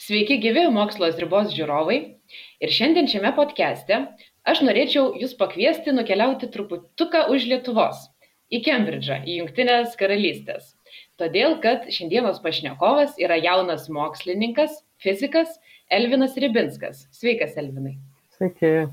Sveiki gyvi Mokslo ribos žiūrovai. Ir šiandien šiame podcast'e aš norėčiau jūs pakviesti nukeliauti truputuką už Lietuvos, į Kembridžą, į Jungtinės karalystės. Todėl, kad šiandienos pašnekovas yra jaunas mokslininkas, fizikas Elvinas Ribinskas. Sveikas, Elvinai. Sveiki.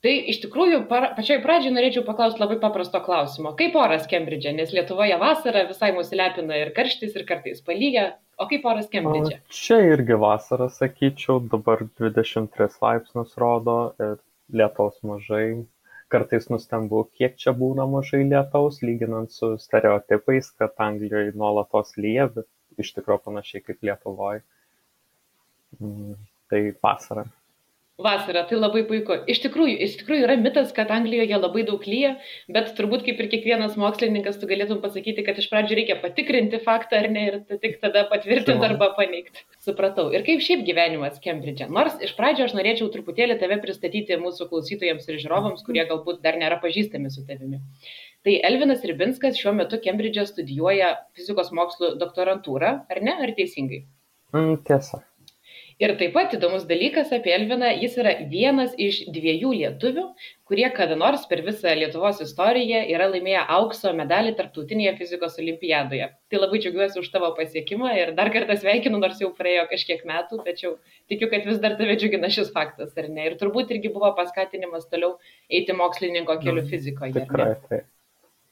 Tai iš tikrųjų pačioj pradžiai norėčiau paklausti labai paprasto klausimo. Kaip oras Kembridže? Nes Lietuvoje vasara visai mus lepina ir karštis, ir kartais palyja. O kaip oras Kembridže? Čia irgi vasara, sakyčiau, dabar 23 laipsnius rodo ir lietaus mažai. Kartais nustembu, kiek čia būna mažai lietaus, lyginant su stereotipais, kad Anglijoje nuolatos lyja, bet iš tikrųjų panašiai kaip Lietuvoje. Tai vasara. Vasara, tai labai puiku. Iš tikrųjų yra mitas, kad Anglijoje labai daug lyja, bet turbūt kaip ir kiekvienas mokslininkas tu galėtum pasakyti, kad iš pradžių reikia patikrinti faktą ar ne ir tik tada patvirtinti arba paneigti. Supratau. Ir kaip šiaip gyvenimas Kembridže? Nors iš pradžio aš norėčiau truputėlį tave pristatyti mūsų klausytojams ir žiūrovams, kurie galbūt dar nėra pažįstami su tavimi. Tai Elvinas Ribinskas šiuo metu Kembridže studijuoja fizikos mokslų doktorantūrą, ar ne? Ar teisingai? Tiesa. Ir taip pat įdomus dalykas apie Elviną, jis yra vienas iš 2 lietuvių, kurie kada nors per visą Lietuvos istoriją yra laimėję aukso medalį tarptautinėje fizikos olimpiadoje. Tai labai džiaugiuosi už tavo pasiekimą ir dar kartą sveikinu, nors jau praėjo kažkiek metų, tačiau tikiu, kad vis dar tave džiugina šis faktas, ar ne? Ir turbūt irgi buvo paskatinimas toliau eiti mokslininko keliu fizikoje. Tikrai, tai.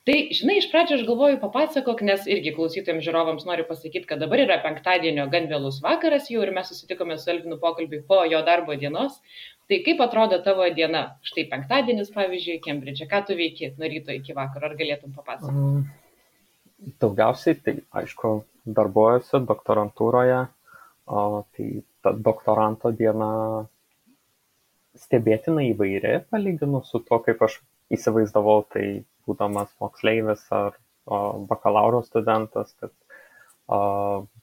Tai, žinai, iš pradžio aš galvoju papasakok, nes irgi klausytojams žiūrovams noriu pasakyti, kad dabar yra penktadienio gan vėlus vakaras jau ir mes susitikome su Elvinu pokalbį po jo darbo dienos. Tai kaip atrodo tavo diena? Štai penktadienis, pavyzdžiui, Kembridže. Ką tu veiki nuo ryto iki vakaro? Ar galėtum papasakoti? Daugiausiai, tai aišku, darbuojuosi doktorantūroje. Tai ta doktoranto diena stebėtinai įvairi, palyginus su tuo, kaip aš įsivaizdavau, tai būdamas moksleivis ar bakalauro studentas, kad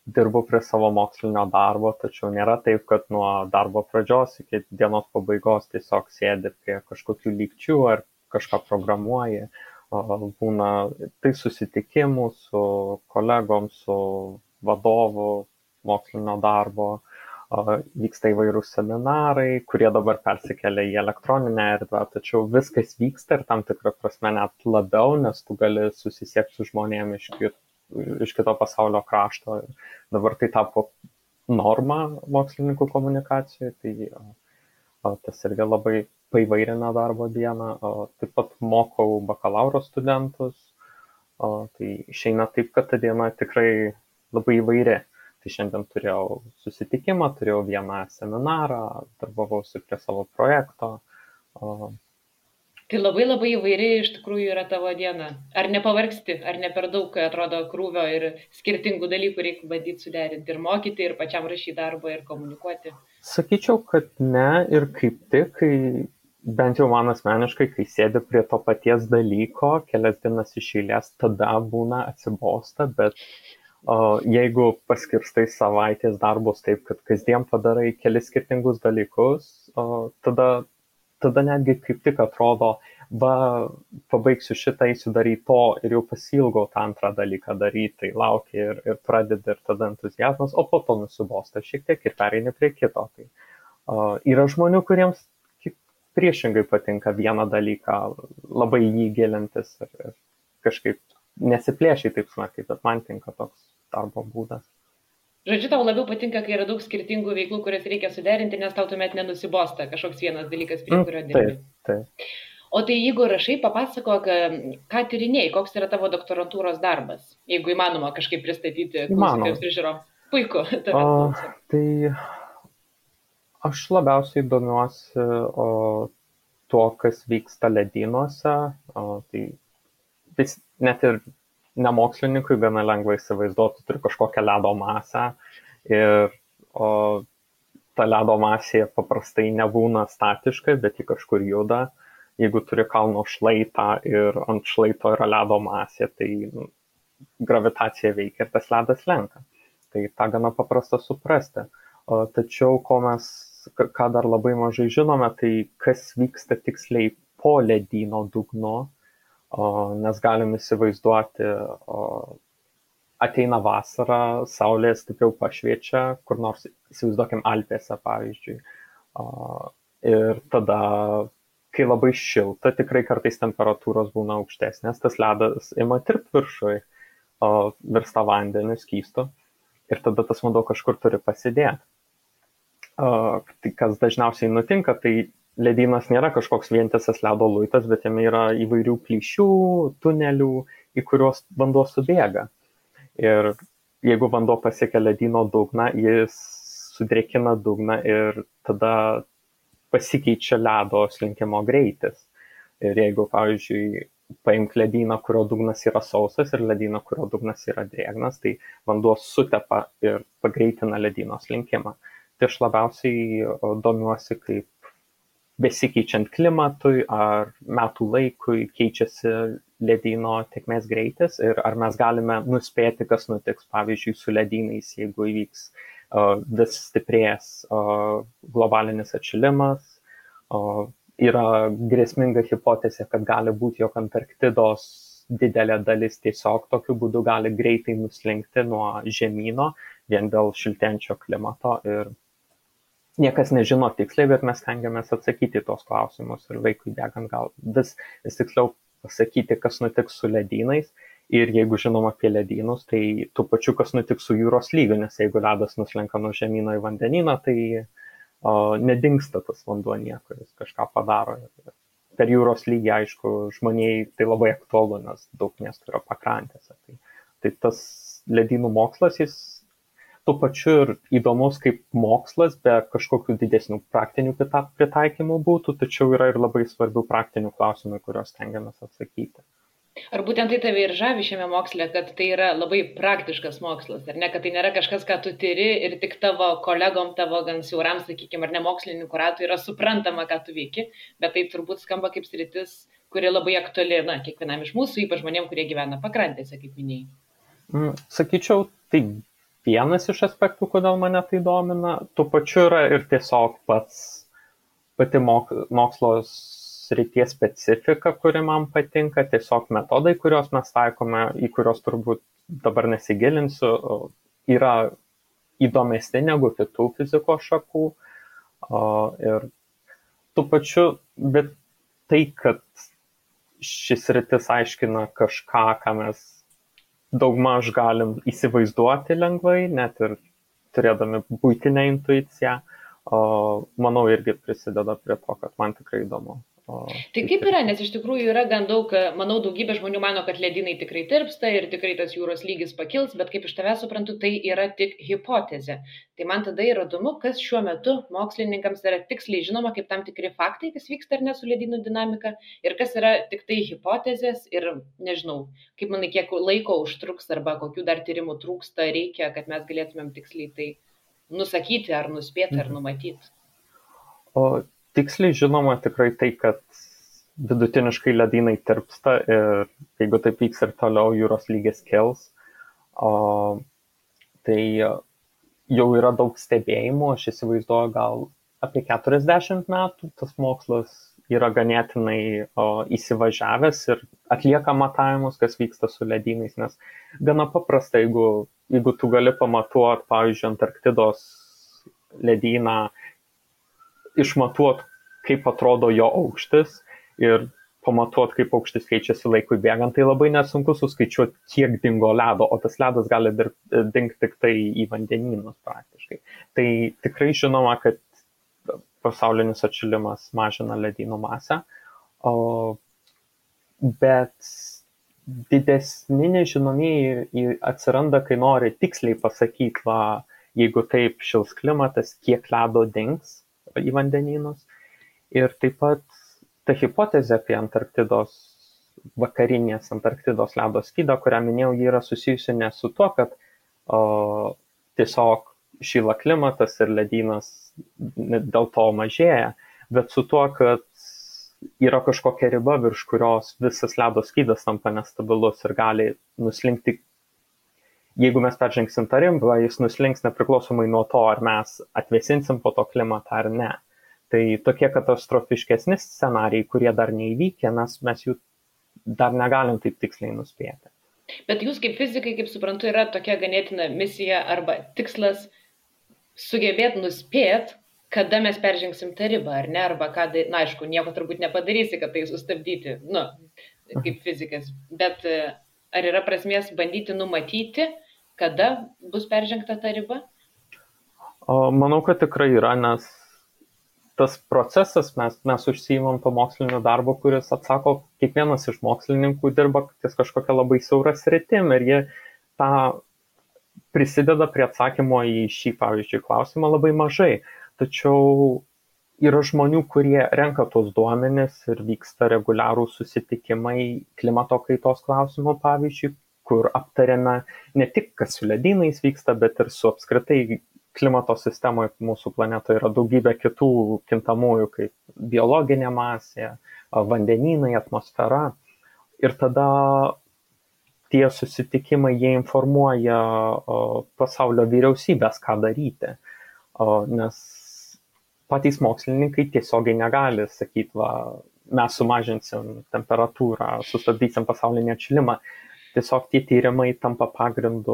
dirbu prie savo mokslinio darbo, tačiau nėra taip, kad nuo darbo pradžios iki dienos pabaigos tiesiog sėdi prie kažkokių lygčių ar kažką programuoji. Būna tai susitikimų su kolegom, su vadovu mokslinio darbo, vyksta įvairūs seminarai, kurie dabar persikelia į elektroninę erdvę, tačiau viskas vyksta ir tam tikrą prasme net labiau, nes tu gali susisiekti su žmonėmis iš kito pasaulio krašto. Dabar tai tapo norma mokslininkų komunikacijoje, tai tas irgi labai paįvairina darbo dieną. Taip pat mokau bakalauro studentus, tai išeina taip, kad ta diena tikrai labai įvairi. Tai šiandien turėjau susitikimą, turėjau vieną seminarą, darbavausi prie savo projekto. Tai labai įvairi iš tikrųjų yra tavo diena. Ar nepavargsti, ar ne per daug atrodo krūvio ir skirtingų dalykų reikia bandyti suderinti ir mokyti, ir pačiam rašyti darbą, ir komunikuoti? Sakyčiau, kad ne, ir kaip tik, kai bent jau man asmeniškai, kai sėdi prie to paties dalyko, kelias dienas iš eilės, tada būna atsibosta, bet jeigu paskirstai savaitės darbus taip, kad kasdien padarai kelis skirtingus dalykus, tada netgi kaip tik atrodo, pabaigsiu šitą, eisiu daryti to ir jau pasilgau tą antrą dalyką daryti, tai lauki ir pradedi ir tada entuziazmas, o po to nusibosta šiek tiek ir pereini prie kito. Tai yra žmonių, kuriems priešingai patinka vieną dalyką, labai jį gilintis ir kažkaip nesiplėšiai taip smarkiai, bet man tinka toks darbo būdas. Žodžiu, tau labiau patinka, kai yra daug skirtingų veiklų, kurias reikia suderinti, nes tau tuomet nenusibosta kažkoks vienas dalykas, prie kurio dirbi. Taip. O tai jeigu rašai, papasakok, ką tyrinėjai, koks yra tavo doktorantūros darbas, jeigu įmanoma kažkaip pristatyti klausytojams ir žiūrovams. Puiku. Tai aš labiausiai domiuosi tuo, kas vyksta ledynuose. Tai net ir nemokslininkui gana lengva įsivaizduoti, turi kažkokią ledo masę ir ta ledo masė paprastai nebūna statiška, bet ji kažkur juda. Jeigu turi kalno šlaitą ir ant šlaito yra ledo masė, tai gravitacija veikia ir tas ledas lenka. Tai tą gana paprasta suprasti. Tačiau ką dar labai mažai žinome, tai kas vyksta tiksliai po ledyno dugnu. nes galim įsivaizduoti, ateina vasara, saulė stipriau pašviečia, kur nors įsivaizduokim Alpėse, pavyzdžiui. Ir tada, kai labai šilta, tikrai kartais temperatūros būna aukštesnės, tas ledas ima tirpti viršui, virsta vandeniu skystu ir tada tas vanduo kažkur turi pasidėti. Tai kas dažniausiai nutinka, tai ledynas nėra kažkoks vientisas ledo luitas, bet jame yra įvairių plyšių, tunelių, į kuriuos vanduo subėga. Ir jeigu vanduo pasiekia ledyno dugną, jis sudrėkina dugną ir tada pasikeičia ledo slinkimo greitis. Ir jeigu, pavyzdžiui, paimk ledyną, kurio dugnas yra sausas ir ledyną, kurio dugnas yra drėgnas, tai vanduo sutepa ir pagreitina ledyno slinkimą. Tai aš labiausiai domiuosi, kaip besikeičiant klimatui ar metų laikui keičiasi ledyno tėkmės greitis ir ar mes galime nuspėti, kas nutiks, pavyzdžiui, su ledynais, jeigu įvyks vis stiprės globalinis atšilimas. Yra grėsminga hipotezė, kad gali būti, jog Antarktidos didelė dalis tiesiog tokiu būdu gali greitai nuslinkti nuo žemyno vien dėl šiltėjančio klimato ir niekas nežino tiksliai, bet mes stengiamės atsakyti tos klausimus ir laikui bėgant gal vis tiksliau pasakyti, kas nutiks su ledynais ir jeigu žinom apie ledynus, tai tų pačių, kas nutiks su jūros lygiu, nes jeigu ledas nuslenka nuo žemyno į vandenyną, tai nedingsta tas vanduo niekur, jis kažką padaro. Per jūros lygį, aišku, žmonijai tai labai aktualu, nes daug miestų yra pakrantėse. Tai tas ledynų mokslas, jis tuo pačiu ir įdomus kaip mokslas, be kažkokių didesnių praktinių pritaikymų būtų, tačiau yra ir labai svarbių praktinių klausimų, kuriuos stengiamės atsakyti. Ar būtent tai tave ir žavi šiame moksle, kad tai yra labai praktiškas mokslas, ar ne, kad tai nėra kažkas, ką tu tyri ir tik tavo kolegom, tavo gan siauram, sakykime, ar ne mokslininkų ratui yra suprantama, ką tu veiki, bet tai turbūt skamba kaip sritis, kuri labai aktuali, kiekvienam iš mūsų, ypač žmonėm, kurie gyvena pakrantėse, kaip minėjai. Sakyčiau, tai vienas iš aspektų, kodėl mane tai domina, tuo pačiu yra ir tiesiog pati mokslo srities specifika, kuri man patinka, tiesiog metodai, kuriuos mes taikome, į kuriuos turbūt dabar nesigilinsiu, yra įdomesni negu kitų fizikos šakų. Ir tuo pačiu, bet tai, kad šis sritis aiškina kažką, ką mes daugmaž galim įsivaizduoti lengvai, net ir turėdami buitinę intuiciją, manau, irgi prisideda prie to, kad man tikrai įdomu. Tai kaip yra, nes iš tikrųjų yra gan daug, manau, daugybė žmonių mano, kad ledynai tikrai tirpsta ir tikrai tas jūros lygis pakils, bet kaip iš tavęs suprantu, tai yra tik hipotezė. Tai man tada yra įdomu, kas šiuo metu mokslininkams yra tiksliai žinoma kaip tam tikri faktai, kas vyksta ar ne su ledynų dinamika, ir kas yra tik tai hipotezės ir nežinau, kaip manai, kiek laiko užtruks arba kokių dar tyrimų trūksta reikia, kad mes galėtumėm tiksliai tai nusakyti ar nuspėti ar numatyti. Tiksliai žinoma tikrai tai, kad vidutiniškai ledynai tirpsta ir jeigu taip vyks ir toliau jūros lygis kils, tai jau yra daug stebėjimų, aš įsivaizduoju gal apie 40 metų tas mokslas yra ganėtinai įsivažiavęs ir atlieka matavimus, kas vyksta su ledynais, nes gana paprasta, jeigu tu gali pamatuoti, pavyzdžiui, Antarktidos ledyną, išmatuot, kaip atrodo jo aukštis ir pamatuot, kaip aukštis keičiasi laikui bėgant, tai labai nesunku suskaičiuoti, kiek dingo ledo, o tas ledas gali dingti tik tai į vandenynus praktiškai. Tai tikrai žinoma, kad pasaulinis atšilimas mažina ledynų masę, bet didesni nežinomieji atsiranda, kai nori tiksliai pasakyti, jeigu taip šils klimatas, kiek ledo dings į vandenynus. Ir taip pat ta hipotezė apie Antarktidos, vakarinės Antarktidos ledo skydą, kurią minėjau, ji yra susijusi ne su tuo, kad tiesiog šyla klimatas ir ledynas dėl to mažėja, bet su tuo, kad yra kažkokia riba, virš kurios visas ledo skydas tampa nestabilus ir gali nuslinkti. Jeigu mes peržengsim tą ribą, jis nuslinks nepriklausomai nuo to, ar mes atvėsinsim po to klimatą ar ne. Tai tokie katastrofiškesni scenarijai, kurie dar neįvykę, mes jų dar negalim taip tiksliai nuspėti. Bet jūs kaip fizikai, kaip suprantu, yra tokia ganėtina misija arba tikslas sugebėti nuspėti, kada mes peržengsim tą ribą, ar ne, arba ką, na aišku, nieko turbūt nepadarysi, kad tai sustabdyti, nu, kaip fizikas, bet ar yra prasmės bandyti numatyti, kada bus peržengta ta riba? Manau, kad tikrai yra, nes tas procesas, mes užsiimam to mokslinio darbo, kuris atsako, kiekvienas iš mokslininkų dirba ties kažkokia labai siaura sritim ir jie tą prisideda prie atsakymo į šį, pavyzdžiui, klausimą labai mažai. Tačiau yra žmonių, kurie renka tos duomenis ir vyksta reguliarų susitikimai klimato kaitos klausimų, pavyzdžiui, kur aptariame ne tik, kas su ledynais vyksta, bet ir su apskritai klimato sistemoje mūsų planetoje yra daugybė kitų kintamųjų, kaip biologinė masė, vandenynai, atmosfera. Ir tada tie susitikimai, jie informuoja pasaulio vyriausybės, ką daryti. Nes patys mokslininkai tiesiogiai negali sakyti, va, mes sumažinsim temperatūrą, sustabdysim pasaulinį atšilimą. Tiesiog tie tyrimai tampa pagrindu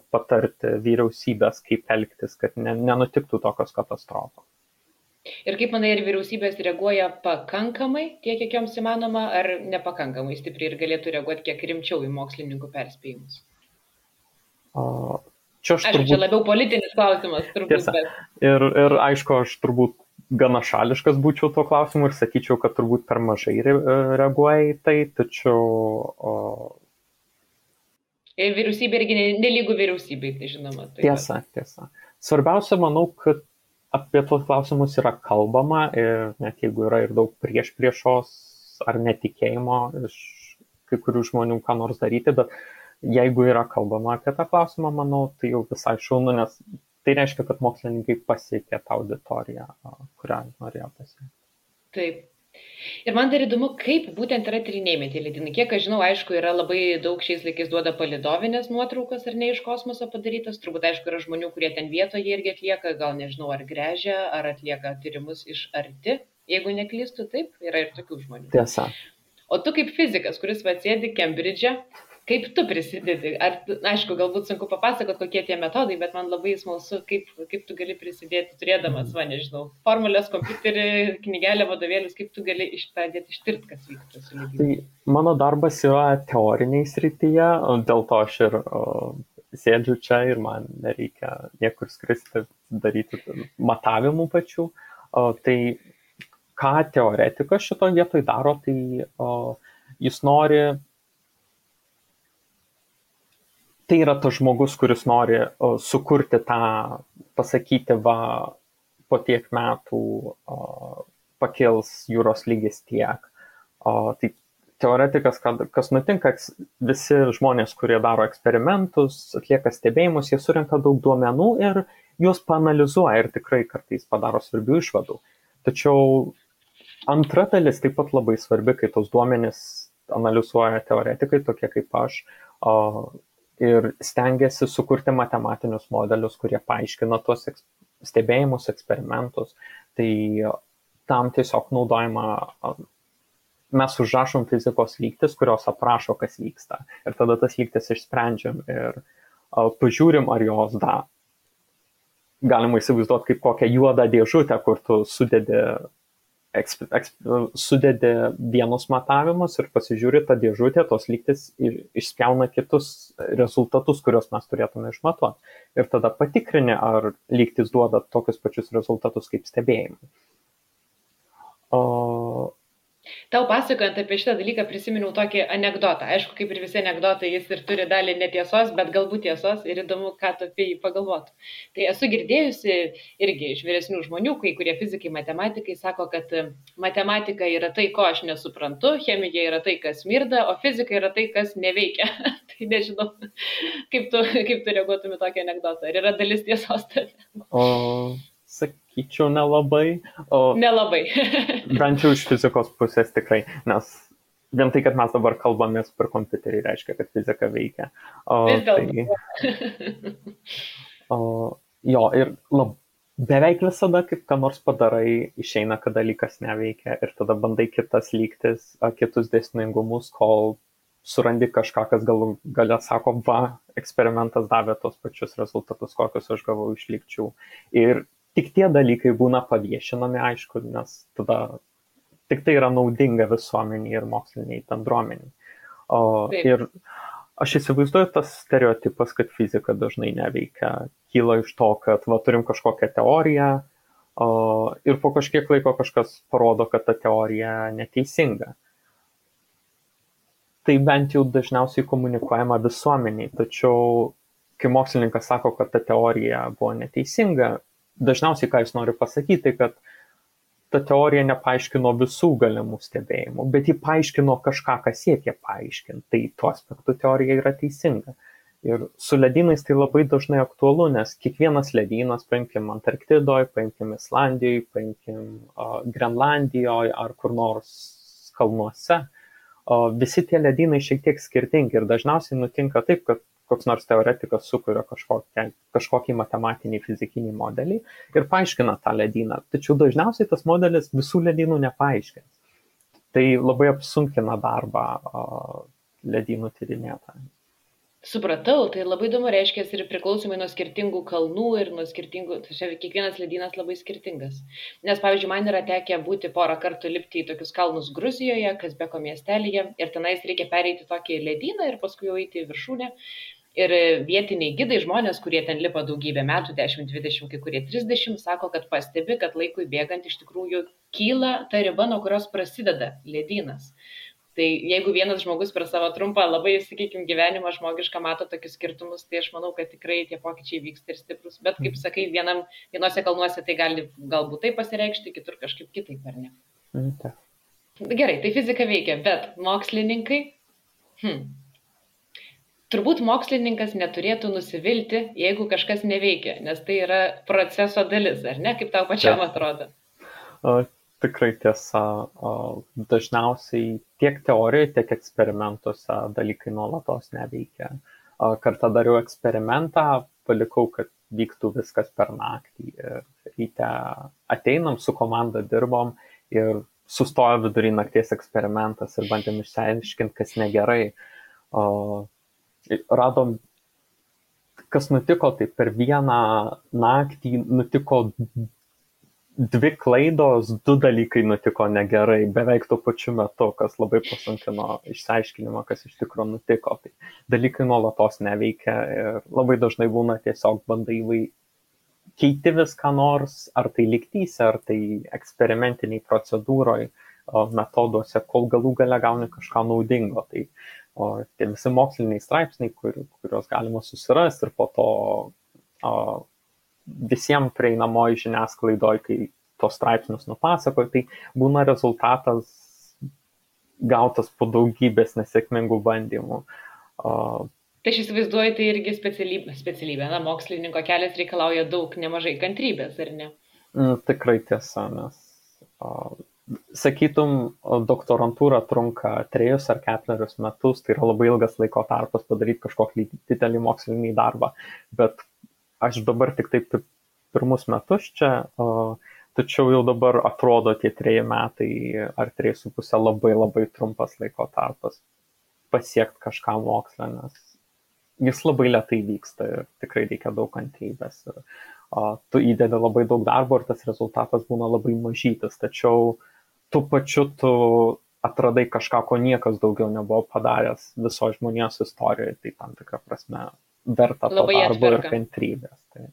patarti vyriausybės, kaip elgtis, kad nenutiktų tokios katastrofos. Ir kaip manai, ar vyriausybės reaguoja pakankamai, tiek kiek joms įmanoma, ar nepakankamai stipriai ir galėtų reaguoti kiek rimčiau į mokslininkų perspėjimus? Čia labiau politinis klausimas, turbūt. Tiesa. Ir aišku, aš turbūt gana šališkas būčiau tuo klausimu ir sakyčiau, kad turbūt per mažai reaguoja į tai, tačiau... Ir vyriausybė irgi nelygų vyriausybei, tai žinoma. Tai tiesa. Svarbiausia, manau, kad apie tuos klausimus yra kalbama ir net jeigu yra ir daug priešos ar netikėjimo iš kai kurių žmonių ką nors daryti, bet jeigu yra kalbama apie tą klausimą, manau, tai jau visai šaunu, nes tai reiškia, kad mokslininkai pasiekė tą auditoriją, kurią norėjo pasiekti. Taip. Ir man dar įdomu, kaip būtent yra tyrinėjami tie ledynai. Kiek aš žinau, aišku, yra labai daug šiais laikais duoda palidovinės nuotraukas ar ne iš kosmoso padarytas. Turbūt, aišku, yra žmonių, kurie ten vietoje irgi atlieka, gal nežinau, ar gręžia, ar atlieka tyrimus iš arti. Jeigu neklystu, taip, yra ir tokių žmonių. Tiesa. O tu kaip fizikas, kuris sėdi Kembridže, kaip tu prisidedi? Aišku, galbūt sunku papasakot, kokie tie metodai, bet man labai smalsu, kaip tu gali prisidėti, turėdamas, nežinau, formulės, kompiuterį, knygelę, vadovėlius, kaip tu gali pradėti ištirti, kas vyksta su lygiai. Tai mano darbas yra teoriniai srityje, dėl to aš ir sėdžiu čia ir man nereikia niekur skristi, daryti matavimų pačių. Tai ką teoretikas šito vietoj daro, tai jis nori... Tai yra tas žmogus, kuris nori sukurti tą, pasakyti, va, po tiek metų pakils jūros lygis tiek. Tai teoretikas, kas nutinka, visi žmonės, kurie daro eksperimentus, atlieka stebėjimus, jie surenka daug duomenų ir juos paanalizuoja ir tikrai kartais padaro svarbių išvadų. Tačiau antra dalis taip pat labai svarbi, kai tos duomenys analizuoja teoretikai, tokie kaip aš, ir stengiasi sukurti matematinius modelius, kurie paaiškina tuos stebėjimus, eksperimentus. Tai tam tiesiog naudojama, mes užrašom fizikos lygtis, kurios aprašo, kas vyksta. Ir tada tas lygtis išsprendžiam ir pažiūrim, ar jos galima įsivaizduoti kaip kokią juodą dėžutę, kur tu sudedi vienus matavimus ir pasižiūri tą dėžutę, tos lygtis išspjauna kitus rezultatus, kuriuos mes turėtume išmatuoti. Ir tada patikrini, ar lygtis duoda tokius pačius rezultatus kaip stebėjimai. Tau pasakojant apie šitą dalyką prisiminiau tokį anekdotą. Aišku, kaip ir visi anekdotai, jis ir turi dalį netiesos, bet galbūt tiesos ir įdomu, ką tu apie jį pagalvotų. Tai esu girdėjusi irgi iš vyresnių žmonių, kai kurie fizikai, matematikai sako, kad matematika yra tai, ko aš nesuprantu, chemija yra tai, kas smirda, o fizika yra tai, kas neveikia. Tai nežinau, kaip tu reaguotum į tokį anekdotą. Ar yra dalis tiesos tame? Sakyčiau, nelabai. Nelabai. Bent jau iš fizikos pusės tikrai, nes vien tai, kad mes dabar kalbamės per kompiuterį, reiškia, kad fizika veikia. Vis dėlto. Jo, ir beveik visada, kaip ką nors padarai, išeina, kad dalykas neveikia ir tada bandai kitas lygtis, kitus dėsningumus, kol surandi kažką, kas galia sako, va, eksperimentas davė tos pačius rezultatus, kokius aš gavau iš lygčių. Ir tik tie dalykai būna paviešinami, aišku, nes tada tik tai yra naudinga visuomeniai ir moksliniai bendruomeniai. Ir aš įsivaizduoju, tas stereotipas, kad fizika dažnai neveikia, kyla iš to, kad turim kažkokią teoriją ir po kažkiek laiko kažkas parodo, kad ta teorija neteisinga. Tai bent jau dažniausiai komunikuojama visuomeniai, tačiau kai mokslininkas sako, kad ta teorija buvo neteisinga, dažniausiai ką jis nori pasakyti, kad ta teorija nepaaiškino visų galimų stebėjimų, bet ji paaiškino kažką, kas siekia paaiškinti. Tai tuo aspektu teorija yra teisinga. Ir su ledynais tai labai dažnai aktualu, nes kiekvienas ledynas, paimkim Antarktidoje, paimkim Islandijoje, paimkim Grenlandijoje ar kur nors kalnuose, visi tie ledynai šiek tiek skirtingi ir dažniausiai nutinka taip, kad koks nors teoretikas sukuria kažkokį matematinį fizikinį modelį ir paaiškina tą ledyną. Tačiau dažniausiai tas modelis visų ledynų nepaaiškins. Tai labai apsunkina darbą ledynų tyrinėtojams. Supratau, tai labai įdomu, reiškia ir priklausomai nuo skirtingų kalnų ir nuo skirtingų, tai kiekvienas ledynas labai skirtingas. Nes, pavyzdžiui, man yra tekę būti porą kartų lipti į tokius kalnus Gruzijoje, Kazbeko miestelyje, ir tenais reikia pereiti tokį ledyną ir paskui jau eiti į viršūnę. Ir vietiniai gidai, žmonės, kurie ten lipa daugybę metų, 10, 20, kai kurie 30, sako, kad pastebi, kad laikui bėgant iš tikrųjų kyla ta riba, nuo kurios prasideda ledynas. Tai jeigu vienas žmogus per savo trumpą, labai, sakykime, gyvenimą žmogišką mato tokius skirtumus, tai aš manau, kad tikrai tie pokyčiai vyksta ir stiprus. Bet, kaip sakai, vienose kalnuose tai gali galbūt taip pasireikšti, kitur kažkaip kitaip, ar ne? Gerai, tai fizika veikia, bet mokslininkai... Turbūt mokslininkas neturėtų nusivilti, jeigu kažkas neveikia, nes tai yra proceso dalis, ar ne? Kaip tau pačiam atrodo? Tikrai tiesa. Dažniausiai tiek teorijoje, tiek eksperimentuose dalykai nuolatos neveikia. Kartą dariau eksperimentą, palikau, kad vyktų viskas per naktį. Ryte ateinam, su komanda dirbom ir sustojo vidury nakties eksperimentas ir bandėm išsiaiškinti, kas negerai. Radom, kas nutiko, tai per vieną naktį nutiko 2 klaidos, 2 dalykai nutiko negerai, beveik tuo pačiu metu, kas labai pasunkino išsiaiškinimą, kas iš tikrųjų nutiko. Tai dalykai nuolatos neveikia ir labai dažnai būna tiesiog bandai keiti viską nors, ar tai lygtyse, ar tai eksperimentiniai procedūroje, metoduose, kol galų gale gauni kažką naudingo. Tai tie visi moksliniai straipsniai, kuriuos galima susirasti ir po to visiems prieinamoji žiniasklaidoje, kai tos straipsnius nupasakoja, tai būna rezultatas gautas po daugybės nesėkmingų bandymų. Tai aš įsivaizduoju, tai irgi specialybė. Na, mokslininko kelias reikalauja nemažai kantrybės, ar ne? Tikrai tiesa, nes sakytum, doktorantūra trunka 3 ar 4 metus, tai yra labai ilgas laiko tarpas padaryti kažkokį didelį mokslinį darbą, bet aš dabar tik taip pirmus metus čia, tačiau jau dabar atrodo tie 3 metai ar 3,5 labai labai trumpas laiko tarpas pasiekti kažką mokslą, nes jis labai lėtai vyksta ir tikrai reikia daug kantrybės. Tu įdedi labai daug darbo ir tas rezultatas būna labai mažytis, tačiau tuo pačiu tu atradai kažką, ko niekas daugiau nebuvo padaręs viso žmonijos istorijoje, tai tam tikrą prasme verta to darbo ir kantrybės. Tai.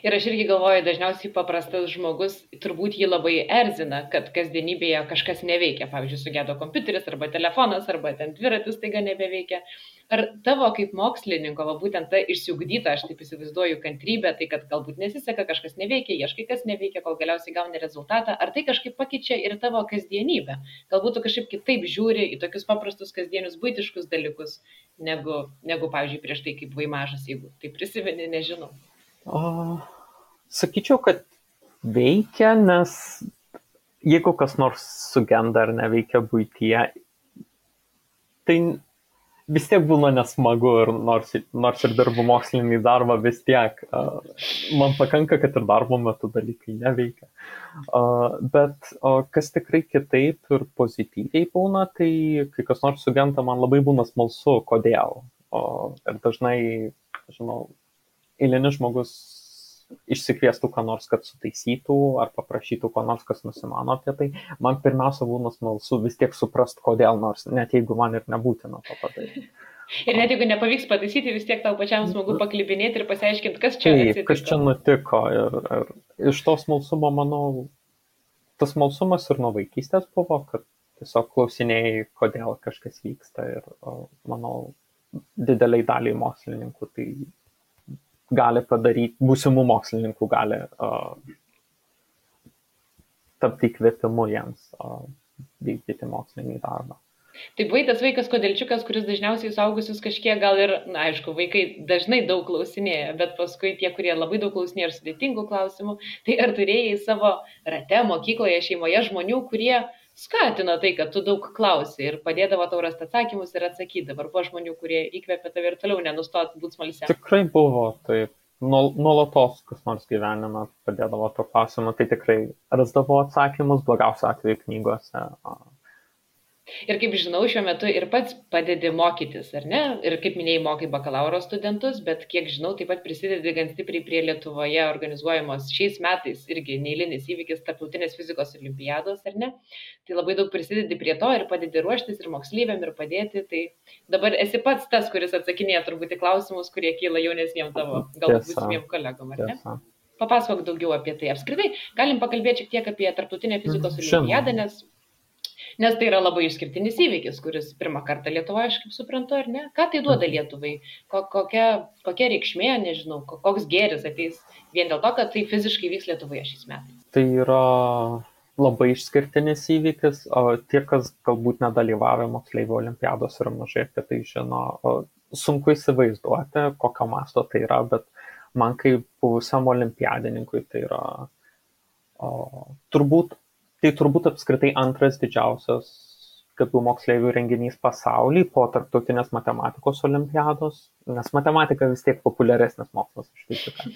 Ir aš irgi galvoju, dažniausiai paprastas žmogus turbūt jį labai erzina, kad kasdienybėje kažkas neveikia. Pavyzdžiui, sugedo kompiuteris arba telefonas arba ten dviratis taiga nebeveikia. Ar tavo kaip mokslininko, būtent ta išsiugdyta, aš taip įsivaizduoju, kantrybė, tai kad galbūt nesiseka, kažkas neveikia, ieškai kas neveikia, kol galiausiai gauni rezultatą, ar tai kažkaip pakeičia ir tavo kasdienybę? Galbūt tu kažkaip kitaip žiūri į tokius paprastus kasdienius buitiškus dalykus, negu pavyzdžiui, prieš tai kaip buvai mažas, jeigu tai prisimeni, nežinau. Sakyčiau, kad veikia, nes jeigu kas nors sugenda ar neveikia buityje, tai vis tiek būna nesmagu ir nors ir dirbu mokslinį darbą, vis tiek man pakanka, kad ir darbo metu dalykai neveikia. Bet kas tikrai kitaip ir pozityviai būna, tai kai kas nors sugenta, man labai būna smalsu, kodėl. Ir dažnai, žinau, eilinis žmogus išsikviestų ką nors, kad sutaisytų, ar paprašytų ko nors, kas nusimano apie tai. Man pirmiausia būna smalsu vis tiek suprast, kodėl, nors net jeigu man ir nebūtina to padaryti. Ir net jeigu nepavyks pataisyti, vis tiek tau pačiam smagu paklibinėti ir pasiaiškinti, kas čia atsitiko. Kas čia nutiko. Ir iš to smalsumo, manau, tas smalsumas ir nuo vaikystės buvo, kad tiesiog klausinėjai, kodėl kažkas vyksta. Ir manau, dideliai daliai mokslininkų tai gali padaryti, būsimų mokslininkų gali tapti įkvėpimu jiems vykdyti mokslinį darbą. Tai buvai tas vaikas kodėlčiukas, kuris dažniausiai suaugusius kažkiek gal ir, na aišku, vaikai dažnai daug klausinėja, bet paskui tie, kurie labai daug klausinėja ir sudėtingų klausimų, tai ar turėjai savo rate, mokykloje, šeimoje žmonių, kurie skatino tai, kad tu daug klausi ir padėdavo tau rasti atsakymus ir atsakydavo. Ar buvo žmonių, kurie įkvėpė tave ir toliau nenustot būti smalsiam? Tikrai buvo, taip. Nuolatos kas nors gyvenime padėdavo to klausimą, tai tikrai rasdavo atsakymus, blogiausiu atveju knygose. Ir kaip žinau, šiuo metu ir pats padedi mokytis, ar ne? Ir kaip minėjai, mokai bakalauro studentus, bet kiek žinau, taip pat prisidedi gan stipriai prie Lietuvoje organizuojamos šiais metais irgi neeilinis įvykis tarptautinės fizikos olimpiados, ar ne? Tai labai daug prisidedi prie to ir padedi ruoštis ir moksleiviam ir padėti. Tai dabar esi pats tas, kuris atsakinėja turbūt į klausimus, kurie kyla jaunesniem tavo, galbūt būsimiem kolegom, ar ne? Papasakok daugiau apie tai. Apskritai, galim pakalbėti šiek tiek apie tarptautinę fizikos olimpiadą, nes tai yra labai išskirtinis įvykis, kuris pirmą kartą Lietuvoje, aš kaip suprantu, ar ne? Ką tai duoda Lietuvai? Kokia reikšmė, nežinau, koks gėris ateis vien dėl to, kad tai fiziškai vyks Lietuvoje šiais metais? Tai yra labai išskirtinis įvykis. Tie, kas galbūt nedalyvavę moksleivių olimpiados ir mažai apie tai žino, sunku įsivaizduoti, kokio masto tai yra, bet man kaip buvusiam olimpiadininkui tai yra turbūt apskritai antras didžiausias gabių moksleivių renginys pasaulyje po tarptautinės matematikos olimpiados, nes matematika vis tiek populiaresnis mokslas už fiziką,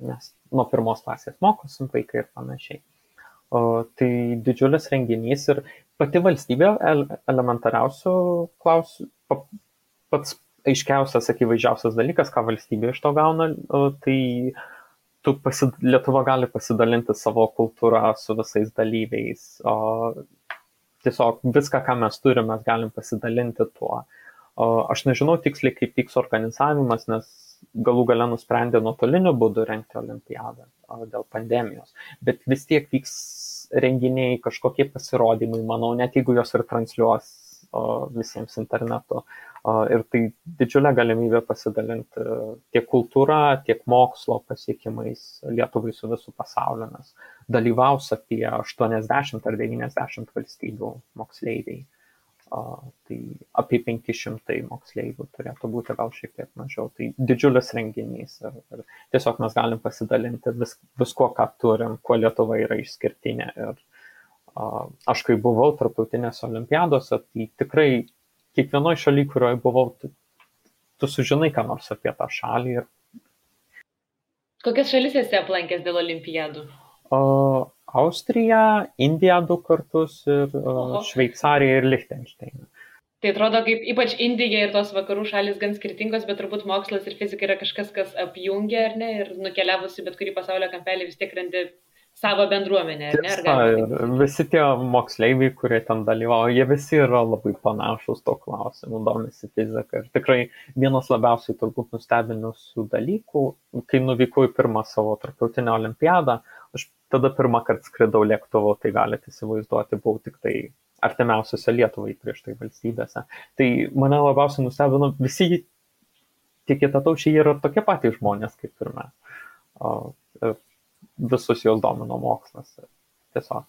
nes nuo pirmos klasės mokosim vaikai ir panašiai. Tai didžiulis renginys ir pati valstybė elementariausių klausimų, pats aiškiausias, akivaizdžiausias dalykas, ką valstybė iš to gauna, tai Lietuva gali pasidalinti savo kultūrą su visais dalyviais. Tiesiog viską, ką mes turime, mes galim pasidalinti tuo. Aš nežinau tiksliai, kaip vyks organizavimas, nes galų gale nusprendė nuotoliniu būdu rengti olimpiadą dėl pandemijos. Bet vis tiek vyks renginiai, kažkokie pasirodymai, manau, net jeigu jos ir transliuos visiems internetu. Ir tai didžiulė galimybė pasidalinti tiek kultūra, tiek mokslo pasiekimais Lietuvai su visų pasauliu, nes dalyvaus apie 80 ar 90 valstybių moksleiviai. Tai apie 500 moksleivių turėtų būti, gal šiek tiek mažiau. Tai didžiulis renginys ir tiesiog mes galim pasidalinti visko, ką turim, kuo Lietuva yra išskirtinė. Ir aš kai buvau tarptautinėse olimpiadose, tai tikrai kiekvienoje šalyje, kurioje buvau, tu sužinai ką nors apie tą šalį. Kokias šalis esi aplankęs dėl olimpiadų? Austrija, Indija 2 kartus ir Šveicarija ir Lichtensteiną. Tai atrodo, kaip ypač Indija ir tos vakarų šalis gan skirtingos, bet turbūt mokslas ir fizika yra kažkas, kas apjungia, ar ne? Ir nukeliavusi bet kurį pasaulio kampelį vis tiek randi savo bendruomenę, ar ne? Ir visi tie moksleiviai, kurie ten dalyvauja, jie visi yra labai panašus to klausimu, domisi fizika. Ir tikrai vienas labiausiai turbūt nustebinusių dalykų, kai nuvykau į pirmą savo tarptautinę olimpiadą, aš tada pirmą kartą skridau lėktuvu, tai galite įsivaizduoti, buvau tik tai artimiausiose Lietuvai prieš tai valstybėse. Tai mane labiausiai nustebino, visi tie kitataučiai yra tokie patys žmonės kaip ir mes. Visus jos domino mokslas. Tiesiog.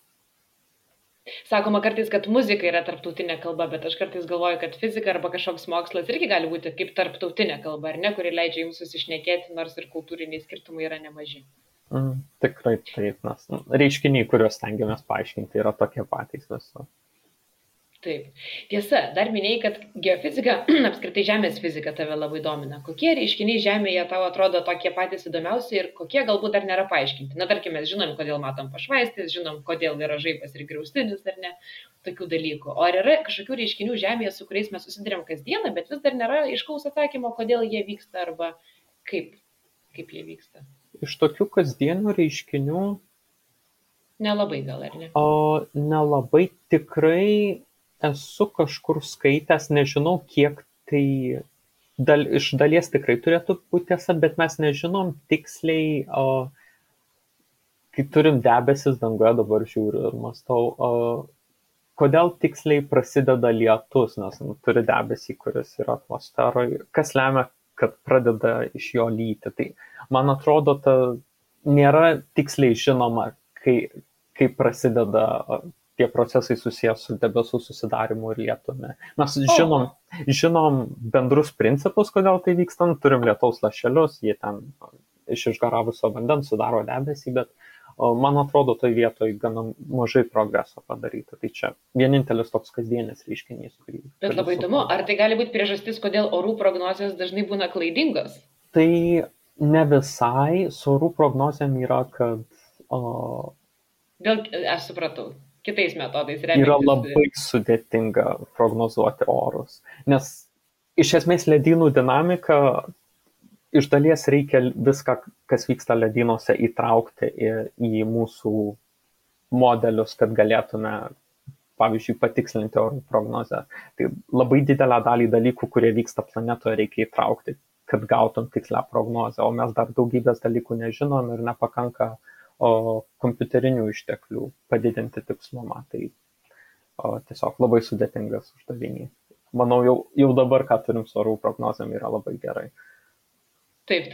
Sakoma kartais, kad muzika yra tarptautinė kalba, bet aš kartais galvoju, kad fizika arba kažkoks mokslas irgi gali būti kaip tarptautinė kalba, ar ne, kuri leidžia jums susišnekėti, nors ir kultūriniai skirtumai yra nemaži. Tikrai taip, nes reiškiniai, kuriuos stengiamės paaiškinti, yra tokie patys visur. Taip. Tiesa, dar minėjai, kad geofizika, apskritai Žemės fizika tave labai domina. Kokie reiškiniai Žemėje tau atrodo tokie patys įdomiausi ir kokie galbūt dar nėra paaiškinti? Na, tarkim, mes žinom, kodėl matom pašvaistis, žinom, kodėl yra žaibas ir griaustinis, ar ne, tokių dalykų. O ar yra kažkokių reiškinių Žemėje, su kuriais mes susidurėm kasdieną, bet vis dar nėra aiškaus atsakymo, kodėl jie vyksta arba kaip jie vyksta? Iš tokių kasdienių reiškinių Nelabai gal, ar ne? nelabai tikrai esu kažkur skaitęs, nežinau, kiek tai iš dalies tikrai turėtų būti tiesa, bet mes nežinom tiksliai, kai turim debesis danguje, dabar žiūriu ir mąstau, kodėl tiksliai prasideda lietus, nes turi debesį, kuris yra atmosferoje, kas lemia, kad pradeda iš jo lyti. Tai man atrodo, nėra tiksliai žinoma, kai prasideda tie procesai susijęs su debesų susidarimu ir lietumi. Mes žinom bendrus principus, kodėl tai vyksta, turim lietaus lašelius, jie ten iš išgaravusio vandens sudaro debesį, bet man atrodo, toj vietoj gana mažai progreso padaryta. Tai čia vienintelis toks kasdienis reiškinys. Bet labai įdomu, ar tai gali būti priežastis, kodėl orų prognozijos dažnai būna klaidingos? Tai ne visai, su orų prognozijom yra, kad... Aš supratau. Kitais metodais remiantis. Yra labai sudėtinga prognozuoti orus, nes iš esmės ledynų dinamika, iš dalies reikia viską, kas vyksta ledynuose, įtraukti į mūsų modelius, kad galėtume, pavyzdžiui, patikslinti orų prognozę. Tai labai didelę dalį dalykų, kurie vyksta planetoje, reikia įtraukti, kad gautum tikslę prognozę, o mes dar daugybės dalykų nežinom ir nepakanka kompiuterinių išteklių padidinti tikslumą. Tai tiesiog labai sudėtingas uždavinys. Manau, jau dabar, ką turim su orų prognozėm, yra labai gerai. Taip.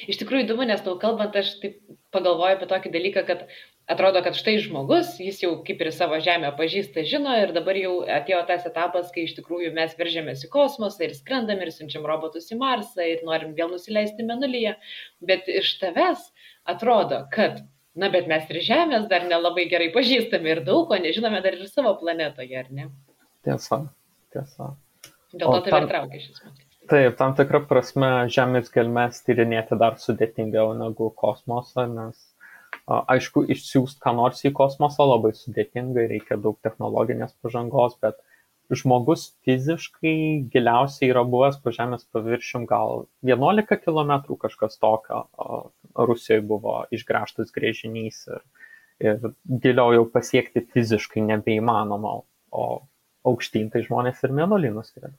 Iš tikrųjų įdomu, nes tau kalbant, aš taip pagalvoju apie tokį dalyką, kad atrodo, kad štai žmogus, jis jau kaip ir savo Žemę pažįsta, žino ir dabar jau atėjo tas etapas, kai iš tikrųjų mes veržėmės į kosmosą ir skrendam ir siunčiam robotus į Marsą ir norim vėl nusileisti Mėnulyje. Bet iš tavęs atrodo, kad bet mes ir Žemės dar nelabai gerai pažįstame ir daug ko nežinome dar ir savo planetoje, ar ne? Tiesa. Dėl to tave ir traukia šis mokslas. Taip, tam tikrą prasme Žemės gelmes tyrinėti dar sudėtingiau negu kosmosą, nes aišku, išsiųsti ką nors į kosmosą labai sudėtingai, reikia daug technologinės pažangos, bet žmogus fiziškai giliausiai yra buvęs po Žemės paviršium gal 11 km kažkas tokio. Rusijoje buvo išgręžtas gręžinys ir giliau jau pasiekti fiziškai nebeįmanoma, o aukštyn tai žmonės ir Mėnulį nuskrido.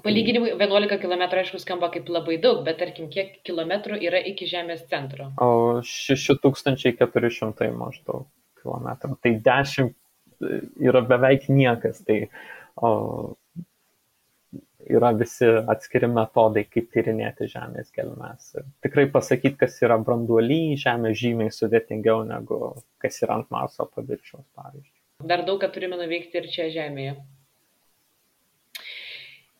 Palyginimui 11 km aišku skamba kaip labai daug, bet tarkim, kiek kilometrų yra iki Žemės centro? 6400 maždaug kilometrų. Tai 10 yra beveik niekas, tai yra visi atskiri metodai, kaip tyrinėti Žemės gelmes. Tikrai pasakyti, kas yra branduoly Žemė, žymiai sudėtingiau negu kas yra ant Marso paviršiaus, pavyzdžiui. Dar daug ką turime nuveikti ir čia Žemėje.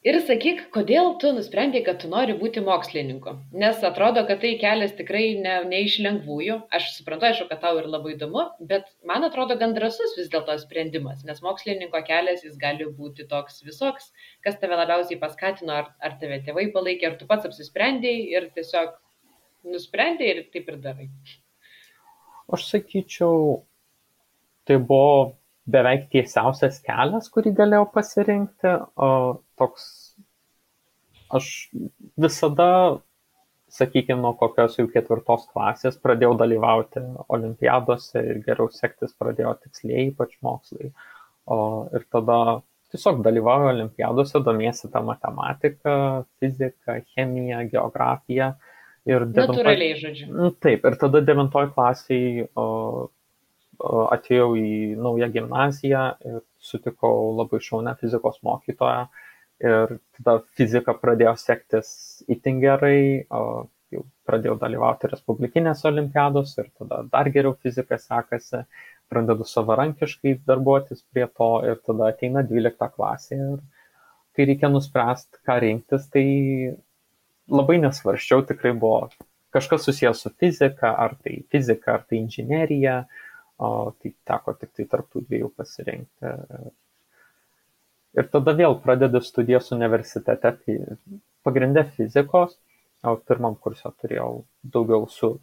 Ir sakyk, kodėl tu nusprendei, kad tu nori būti mokslininku? Nes atrodo, kad tai kelias tikrai ne iš lengvųjų. Aš suprantu, aišku, kad tau ir labai įdomu, bet man atrodo gan drąsus vis dėlto sprendimas, nes mokslininko kelias jis gali būti toks visoks, kas tave labiausiai paskatino, ar tave tėvai palaikė, ar tu pats apsisprendėjai ir tiesiog nusprendėjai ir taip ir darai. Aš sakyčiau, tai buvo beveik tiesiausias kelias, kurį galėjau pasirinkti. Aš visada, sakykime, nuo kokios jau 4 klasės pradėjau dalyvauti olimpiadose ir geriau sektis pradėjo tikslieji, ypač mokslai. Ir tada tiesiog dalyvauju olimpiadose, domiesi tą matematiką, fiziką, chemiją, geografiją. Natūraliai, žodžiu. Taip, ir tada 9 klasiai atėjau į naują gimnaziją ir sutikau labai šaunią fizikos mokytoją. Ir tada fizika pradėjo sektis itin gerai, jau pradėjau dalyvauti respublikinėse olimpiadose ir tada dar geriau fizika sekasi, pradedu savarankiškai darbuotis prie to ir tada ateina 12 klasė ir kai reikia nuspręsti, ką rinktis, tai labai nesvarsčiau, tikrai buvo kažkas susijęs su fizika, ar tai inžinerija, tai teko tik tai tarp tų dviejų pasirinkti. Ir tada vėl pradedi studijas universitete, pagrindė fizikos, o pirmam kurse turėjau daugiau su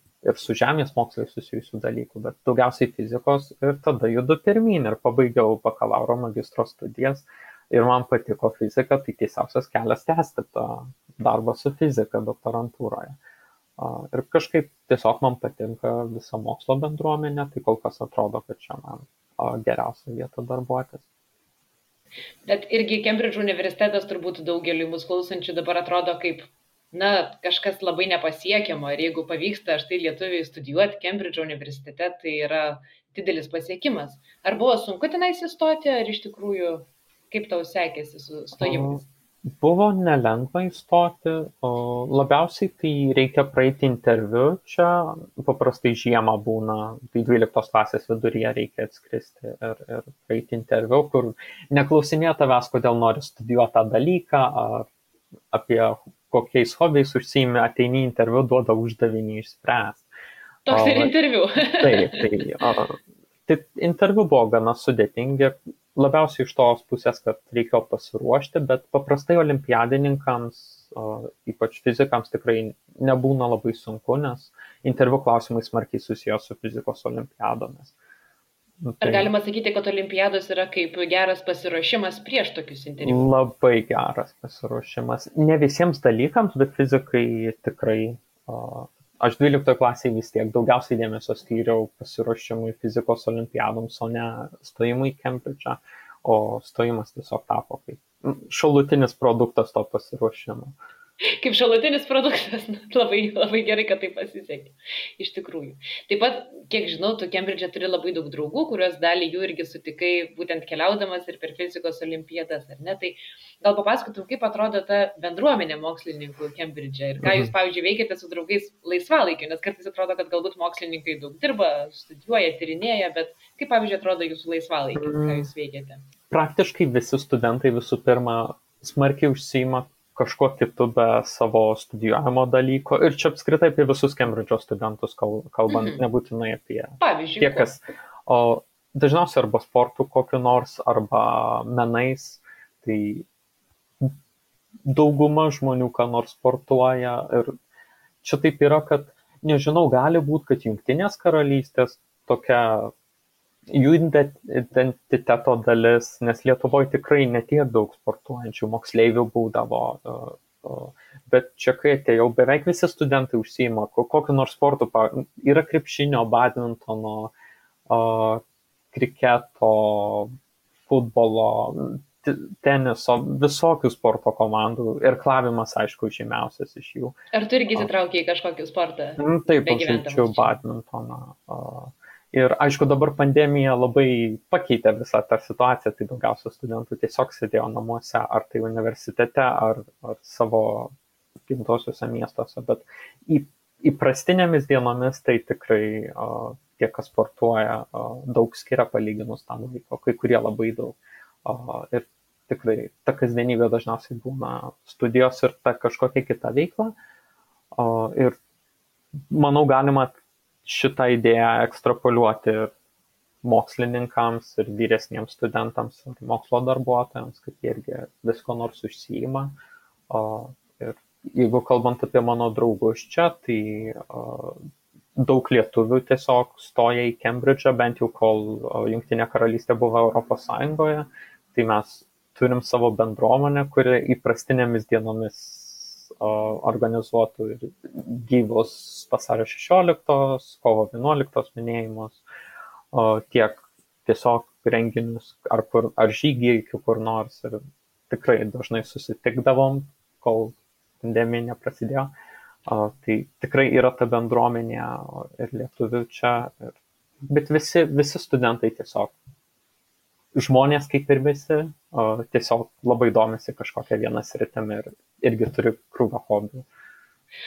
žemės mokslai susijusių dalykų, bet daugiausiai fizikos ir tada judu pirmyn ir pabaigiau bakalauro magistro studijas ir man patiko fizika, tai tiesiausias kelias tęsti tą darbą su fizika doktorantūroje. Ir kažkaip tiesiog man patinka visa mokslo bendruomenė, tai kol kas atrodo, kad čia man geriausia vieta darbuotis. Bet irgi Kembridžo universitetas turbūt daugeliu mūsų klausančių dabar atrodo kaip, kažkas labai nepasiekiamo. Ir jeigu pavyksta štai lietuviai studijuoti Kembridžo universitete, tai yra didelis pasiekimas. Ar buvo sunku tenais įstoti, ar iš tikrųjų, kaip tau sekėsi su stojimais? Buvo nelengva įstoti, labiausiai tai reikia praeiti interviu, čia paprastai žiemą būna, tai 12 klasės viduryje reikia atskristi ir praeiti interviu, kur neklausinėja tavęs, kodėl nori studijuoti tą dalyką, ar apie kokiais hobiais užsiimi, ateini interviu, duoda uždavinį išspręsti. Toks ir interviu. Tai interviu buvo gana sudėtingi, labiausiai iš tos pusės, kad reikėjo pasiruošti, bet paprastai olimpiadininkams, ypač fizikams, tikrai nebūna labai sunku, nes interviu klausimai smarkiai susijęs su fizikos olimpiadomis. Ar galima sakyti, kad olimpiados yra kaip geras pasiruošimas prieš tokius interviu? Labai geras pasiruošimas. Ne visiems dalykams, bet fizikai tikrai... Aš 12 klasėje vis tiek daugiausiai dėmesio skyriau pasiruošimui fizikos olimpiadoms, o ne stojimui į Kembridžą, o stojimas tiesiog tapo kaip šalutinis produktas to pasiruošimo. Kaip šalutinis produktas, labai, labai gerai, kad tai pasisekė, iš tikrųjų. Taip pat, kiek žinau, tu Kembridže turi labai daug draugų, kuriuos dalį jų irgi sutikai būtent keliaudamas ir per fizikos olimpiadas, ar ne? Tai gal papasakotum, kaip atrodo ta bendruomenė mokslininkų Kembridže ir ką jūs, pavyzdžiui, veikiate su draugais laisvalaikiu, nes kartais atrodo, kad galbūt mokslininkai daug dirba, studijuoja, tyrinėja, bet kaip, pavyzdžiui, atrodo jūsų laisvalaikiu, ką jūs veikiate? Praktiškai visi studentai visų pirma smarkiai užsiima kažkuo kitu be savo studijuojamo dalyko. Ir čia apskritai apie visus Kembridžo studentus kalbant, nebūtinai apie tie, kas. O dažniausiai arba sportų kokiu nors, arba menais. Tai dauguma žmonių ką nors sportuoja. Ir čia taip yra, kad, nežinau, gali būti, kad Jungtinės karalystės tokia jų identiteto dalis, nes Lietuvoje tikrai netiek daug sportuojančių moksleivių būdavo, bet čia kai atėjau, beveik visi studentai užsiima kokiu nors sportu, yra krepšinio, badmintono, kriketo, futbolo, teniso, visokių sporto komandų, irklavimas, aišku, žymiausias iš jų. Ar tu irgi įsitraukei į kažkokį sportą? Taip, aš žaidžiu badmintoną. Ir aišku, dabar pandemija labai pakeitė visą tą situaciją, tai daugiausia studentų tiesiog sėdėjo namuose, ar tai universitete, ar savo gimtosiuose miestuose, bet įprastinėmis dienomis tai tikrai tie, kas sportuoja, daug skiria palyginus tam laiko, kai kurie labai daug. Ir tikrai ta kasdienybė dažniausiai būna studijos ir ta kažkokia kita veikla. Ir manau, galima šitą idėją ekstrapoliuoti ir mokslininkams, ir vyresniems studentams, ir mokslo darbuotojams, kad jie irgi visko nors užsiima. Ir jeigu kalbant apie mano draugus čia, tai daug lietuvių tiesiog stoja į Kembridžą, bent jau kol Jungtinė karalystė buvo Europos Sąjungoje, tai mes turim savo bendruomenę, kuri įprastinėmis dienomis organizuotų ir gyvus vasario 16, kovo 11 minėjimus, tiek tiesiog renginius ar žygiai kur nors. Ir tikrai dažnai susitikdavom, kol pandemija neprasidėjo. Tai tikrai yra ta bendruomenė ir lietuvių čia. Bet visi studentai tiesiog žmonės kaip ir visi, tiesiog labai domisi kažkokią vieną sritimi ir irgi turi krūvą hobių.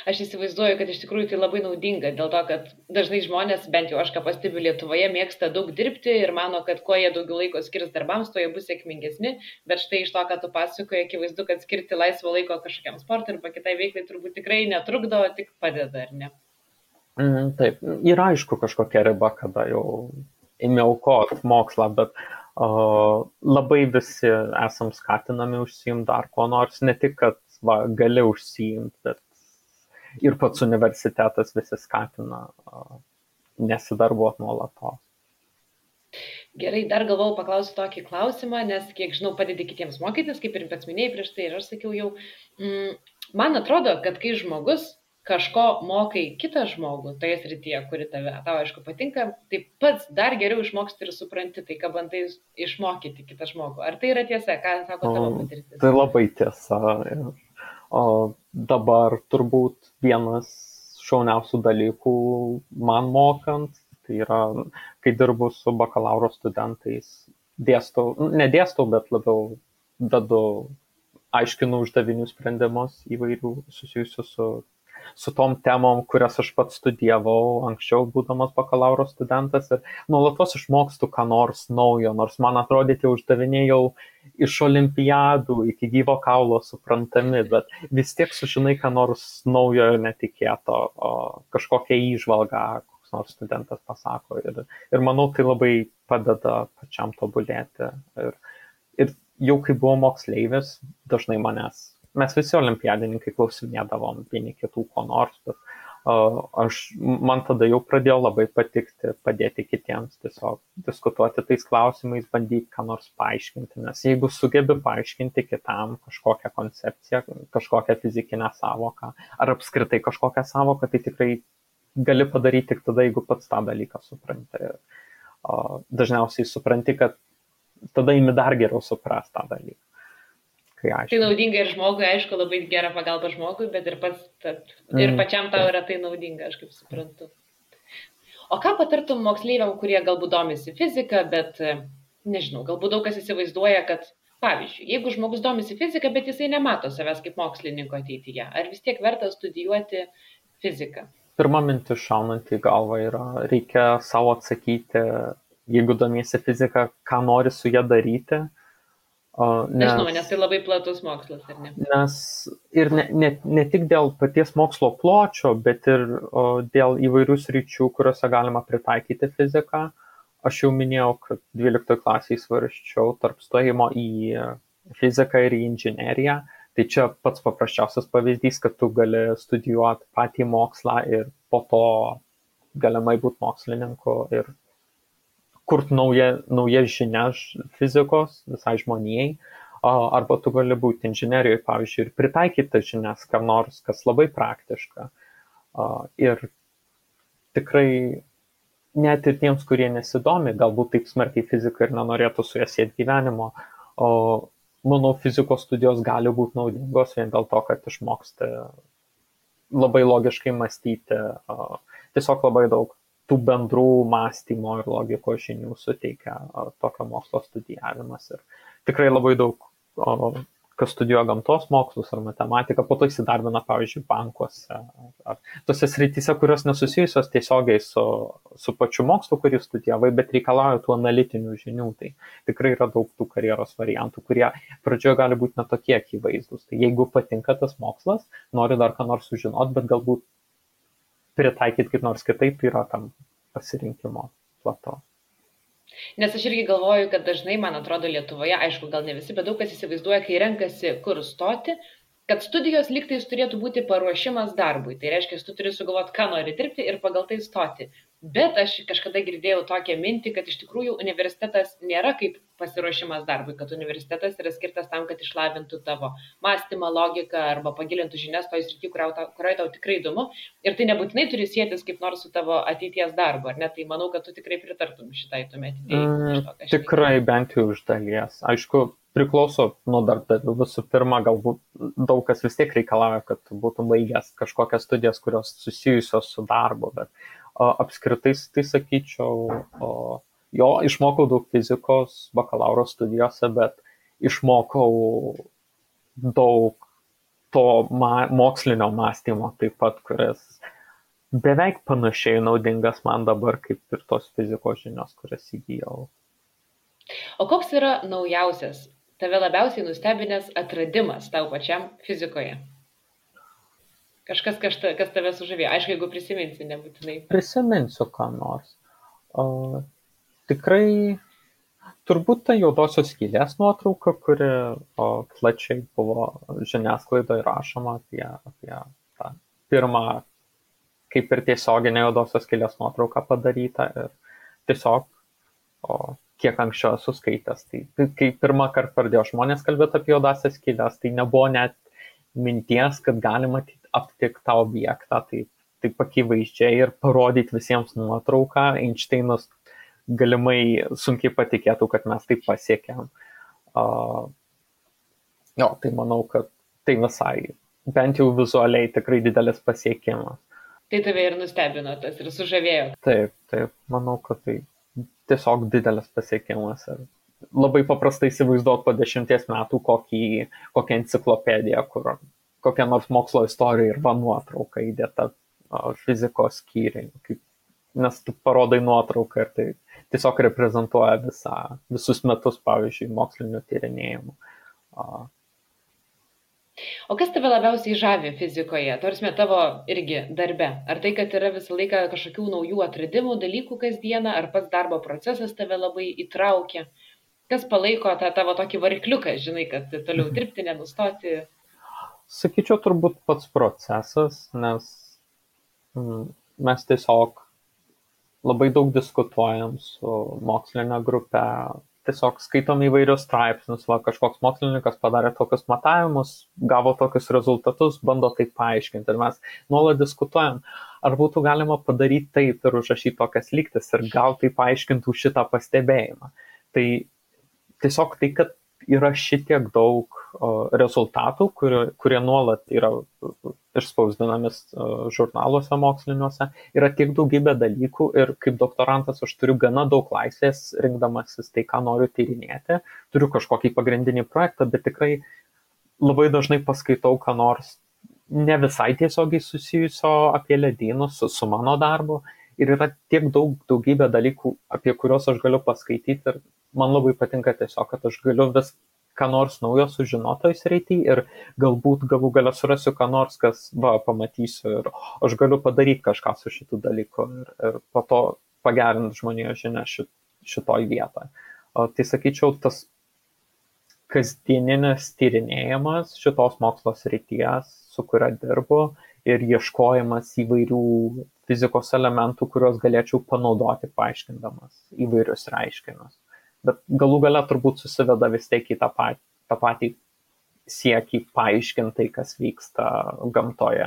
Aš įsivaizduoju, kad iš tikrųjų tai labai naudinga, dėl to, kad dažnai žmonės, bent jau aš ką pastebiu Lietuvoje, mėgsta daug dirbti ir mano, kad kuo jie daugiau laiko skirs darbams, tuo jie bus sėkmingesni, bet štai iš to, ką tu pasakoji, akivaizdu, kad skirti laisvo laiko kažkokiam sportui arba kitai veiklai turbūt tikrai netrukdo, tik padeda, ar ne? Taip, yra aišku kažkokia riba, kada jau ėmė aukoti mokslą, bet labai visi esam skatinami užsiimti dar ko nors, ne tik, kad gali užsiimti, bet ir pats universitetas visi skatina nesidarbuoti nuolatos. Gerai, dar galvojau paklausti tokį klausimą, nes kiek žinau, padedi kitiems mokytis, kaip ir pats minėjai prieš tai, ir aš sakiau jau, man atrodo, kad kai žmogus kažko mokai kitą žmogų toje srityje, kuri tau aišku patinka, tai pats dar geriau išmoksti ir supranti tai, ką bandai išmokyti kitą žmogų. Ar tai yra tiesa, ką sako tavo patirtis? Tai labai tiesa. O dabar turbūt vienas šauniausių dalykų man mokant, tai yra, kai dirbu su bakalauro studentais, nedėstau, bet labiau dedu, aiškinu uždavinių sprendimus įvairių susijusių su tom temom, kurias aš pats studijavau anksčiau, būdamas bakalauro studentas, ir nuolatos išmokstu ką nors naujo, nors man atrodė tie uždaviniai jau iš olimpiadų iki gyvo kaulo suprantami, bet vis tiek sužinai ką nors naujo ir netikėto, kažkokią įžvalgą, koks nors studentas pasako, ir manau, tai labai padeda pačiam tobulėti. Ir jau kai buvau moksleivis, dažnai mes visi olimpiadininkai klausinėdavom vieni kitų ko nors, bet man tada jau pradėjo labai patikti padėti kitiems, tiesiog diskutuoti tais klausimais, bandyti ką nors paaiškinti, nes jeigu sugebi paaiškinti kitam kažkokią koncepciją, kažkokią fizikinę sąvoką, ar apskritai kažkokią sąvoką, tai tikrai gali padaryti tik tada, jeigu pats tą dalyką supranti. Dažniausiai supranti, kad tada imi dar geriau suprast tą dalyką. Tai naudinga ir žmogui, aišku, labai gera pagalba žmogui, bet ir pačiam tau yra tai naudinga, aš kaip suprantu. O ką patartum moksleiviam, kurie galbūt domisi fiziką, bet, nežinau, galbūt daug kas įsivaizduoja, kad, pavyzdžiui, jeigu žmogus domisi fiziką, bet jisai nemato savęs kaip mokslininko ateityje, ar vis tiek verta studijuoti fiziką? Pirma mintis šaunant į galvą yra, reikia savo atsakyti, jeigu domiesi fiziką, ką nori su ją daryti. Nežinau, nes tai labai platus mokslas, ar ne? Nes ir ne tik dėl paties mokslo pločio, bet ir dėl įvairių sričių, kuriuose galima pritaikyti fiziką. Aš jau minėjau, kad 12 klasėje svarsčiau tarp stojimo į fiziką ir į inžineriją. Tai čia pats paprasčiausias pavyzdys, kad tu gali studijuoti patį mokslą ir po to galimai būti mokslininku ir kurti naujas žinias fizikos visai žmonijai, arba tu gali būti inžinerijoje, pavyzdžiui, ir pritaikyti tas žinias, kam nors, kas labai praktiška. Ir tikrai net ir tiems, kurie nesidomi, galbūt taip smarkiai fiziką ir nenorėtų su ja sieti gyvenimo, manau, fizikos studijos gali būti naudingos vien dėl to, kad išmoksti labai logiškai mąstyti, tiesiog labai daug tų bendrų mąstymo ir logikos žinių suteikia tokio mokslo studijavimas. Ir tikrai labai daug, kas studijuoja gamtos mokslus ar matematiką, po to įsidarbina, pavyzdžiui, bankuose ar tose srityse, kurios nesusijusios tiesiogiai su pačiu mokslu, kurį studijavai, bet reikalauja tų analitinių žinių. Tai tikrai yra daug tų karjeros variantų, kurie pradžioje gali būti netokie akivaizdus. Tai jeigu patinka tas mokslas, nori dar ką nors sužinoti, bet galbūt pritaikyti kaip nors kitaip, tai yra tam pasirinkimo plato. Nes aš irgi galvoju, kad dažnai, man atrodo, Lietuvoje, aišku, gal ne visi, bet daug kas įsivaizduoja, kai renkasi kur stoti, kad studijos lygtais turėtų būti paruošimas darbui. Tai reiškia, tu turi sugalvoti, ką nori dirbti ir pagal tai stoti. Bet aš kažkada girdėjau tokią mintį, kad iš tikrųjų universitetas nėra kaip pasiruošimas darbui, kad universitetas yra skirtas tam, kad išlavintų tavo mąstymą, logiką arba pagilintų žinias toj srity, kurioje tau tikrai įdomu. Ir tai nebūtinai turi sėtis kaip nors su tavo ateities darbu, ar ne? Tai manau, kad tu tikrai pritartum šitai tuomet idėjai. Tikrai bent jau iš dalies. Aišku, priklauso nuo darbdavių. Visų pirma, galbūt daug kas vis tiek reikalauja, kad būtum baigęs kažkokias studijas, kurios susijusios su darbu, bet apskritai tai sakyčiau, jo, išmokau daug fizikos bakalauro studijose, bet išmokau daug to mokslinio mąstymo taip pat, kuris beveik panašiai naudingas man dabar kaip ir tos fizikos žinios, kurias įgijau. O koks yra naujausias, tave labiausiai nustebinęs atradimas tau pačiam fizikoje? Kažkas, kas tave sužavėjo. Aišku, jeigu prisiminsi, nebūtinai. Prisiminsiu ką nors. Tikrai turbūt ta juodosios skylės nuotrauka, kuri plačiai buvo žiniasklaidoje rašoma apie tą pirmą, kaip ir tiesioginė juodosios skylės nuotrauka padaryta. Ir tiesiog, kiek anksčiau esu skaitęs, tai kai pirmą kartą pradėjo žmonės kalbėti apie juodasias skylės, tai nebuvo net minties, kad galima aptikti tą objektą, taip akivaizdžiai ir parodyti visiems nuotrauką. Einšteinas galimai sunkiai patikėtų, kad mes taip pasiekėm. Tai manau, kad tai visai, bent jau vizualiai, tikrai didelis pasiekimas. Tai tave ir nustebino tas ir sužavėjo. Taip, manau, kad tai tiesiog didelis pasiekimas. Ir labai paprastai įsivaizduot po 10 metų kokią enciklopediją, kur kokia nors mokslo istorija ir nuotrauka įdėta fizikos skyriai. Nes tu parodai nuotrauką ir tai tiesiog reprezentuoja visus metus, pavyzdžiui, mokslinių tyrinėjimų. O kas tave labiausiai žavi fizikoje, tarsi tavo irgi darbe? Ar tai, kad yra visą laiką kažkokių naujų atradimų, dalykų kasdieną, ar pats darbo procesas tave labai įtraukia? Kas palaiko tą tavo tokį varikliuką, žinai, kad toliau dirbti, nenustoti? Sakyčiau, turbūt pats procesas, nes mes tiesiog labai daug diskutuojam su mokslinė grupė, tiesiog skaitom įvairius straipsnius, kažkoks mokslininkas padarė tokius matavimus, gavo tokius rezultatus, bando tai paaiškinti. Ir mes nuolat diskutuojam, ar būtų galima padaryti taip ir užrašyti tokias lygtis ir gal tai paaiškintų šitą pastebėjimą. Tai tiesiog tai, kad yra šitiek daug rezultatų, kurie nuolat yra išspausdinami žurnaluose moksliniuose, yra tiek daugybė dalykų ir kaip doktorantas aš turiu gana daug laisvės rinkdamasis tai, ką noriu tyrinėti. Turiu kažkokį pagrindinį projektą, bet tikrai labai dažnai paskaitau, ką nors ne visai tiesiogiai susijusio apie ledynus su mano darbu. Ir yra tiek daugybė dalykų, apie kuriuos aš galiu paskaityti ir man labai patinka tiesiog, kad aš galiu vis ką nors naujo sužinotoj srity ir galbūt galų gale surasiu ką nors, kas pamatysiu ir aš galiu padaryti kažką su šitų dalykų ir po to pagerinti žmonijos žinią šitoj vietoje. Tai sakyčiau, tas kasdieninis tyrinėjimas šitos mokslo srities, su kuria dirbu ir ieškojimas įvairių fizikos elementų, kuriuos galėčiau panaudoti paaiškindamas įvairius reiškinius. Bet galų gale turbūt susiveda vis tiek į tą patį siekį paaiškinti, kas vyksta gamtoje.